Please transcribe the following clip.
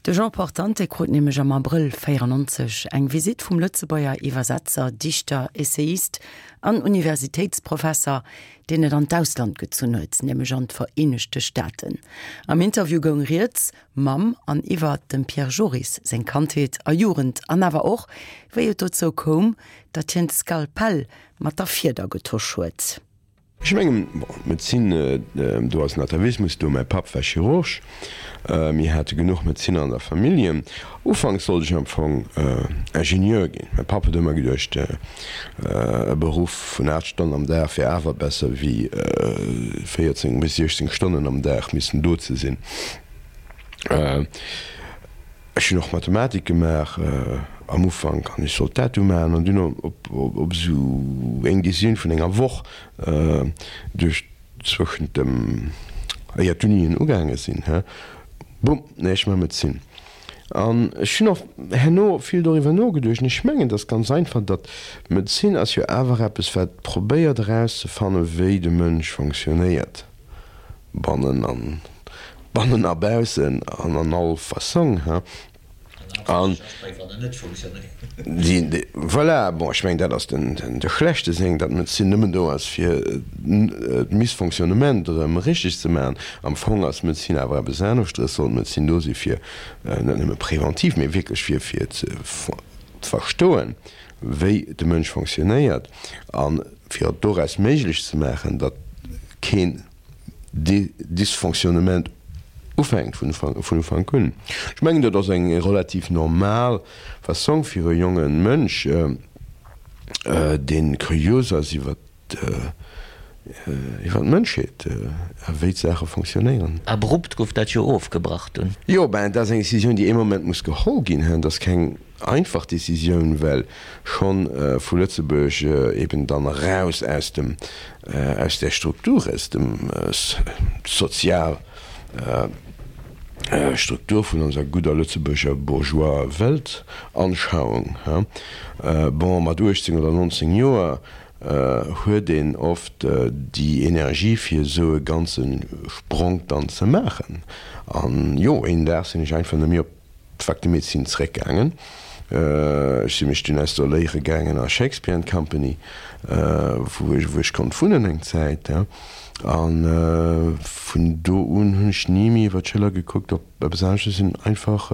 De Jean Portante krut nämlech am Abrëll 94 eng Visitt vum Lëtzebuerger Iwwersetzer, Dichter, Essayist an Universitéitsprofesser, deen et an d'Ausland gezunn huet, nämlech an d'Vereenegte Staaten. Am Interview goung rieds mam an iwwer dem Pierre Joris seng Kandheet a Jugend an awer och, wéi et dozou koum, datt hien d'Skalpell mat der Fieder getosch huet. Ech mengen, bon, d'Medezin, do ass en Atavismus do. Mäi Papp war Chirurg, mir hate genuch Medezinner an der Familljen. Ufanks sollt ech am Fong Ingenieur ginn. Mäi Papp huet ëmmer geduecht, e Beruff vun 8 Stonnen am Dag wär awer besser wéi 14 bis 16 Stonnen am Dag missen do ze sinn. Ech hunn och Mathematik gemaach am Ufank an ech sollt dat du maachen an dunn op esou eng Decisioun vun enger Woch duerch zwëschent dem, éier d'Unien ugaange sinn, he, bumm, nee, ech maache Medezin. An ech hunn och herno vill doriwwer nogeduecht an ech mengen, et ass ganz einfach, datt Medezin ass jo awer eppes, wat probéiert erauszefanne wéi de Mënsch fonctionnéiert. Bannen an bannen a baussen an an all Fassong, hein. An déi, voilà, bon, ech mengen, dat ass den, de schlechte Seng, datt d'Medezin nëmmen do ass, fir d'Missfonctionnement erëm richteg ze maachen. Am Fong ass d'Medezin awer eppes aneschteres, sollt d'Medezin do si fir net nëmme preventiv, mee wierklech fir, fir ze verstoen, wéi de Mënsch fonctionnéiert a fir et doraus méiglech ze maachen, datt keen Dysfonctionnement ufänkt vun Ufank un. Ech mengen, dat ass eng relativ normal Fassong fir e jonge Mënsch, dee kurios ass iwwer d'Mënschheet a wéi d'Saache fonctionnéieren. Abrupt gouf dat jo ofgebrach dunn. Jo, ben, dat ass eng Decisioun, déi ee Moment muss geholl ginn. Dat ass keng einfach Decisioun, well schonn vu Lëtzebuerg eben dann eraus aus dem, aus där Struktur, aus dem sozial Struktur vun onser gudder lëtzebuerger bourgeois Weltanschauung. Bon, mat 18 oder 19 Joer huet een oft déi Energie fir esou e ganze Spronk dann ze maachen. An jo, een Dag sinn ech einfach net méi op d'Fac de Médecine zeréckgaangen. Ech si mech dunn installéiere gaangen a Shakespeare and Company, wou ech konnt wunnen eng Zäit. A vun do un hunn ech ni méi iwwer d'Schëller gekuckt op eppes anescht. Ech sinn einfach.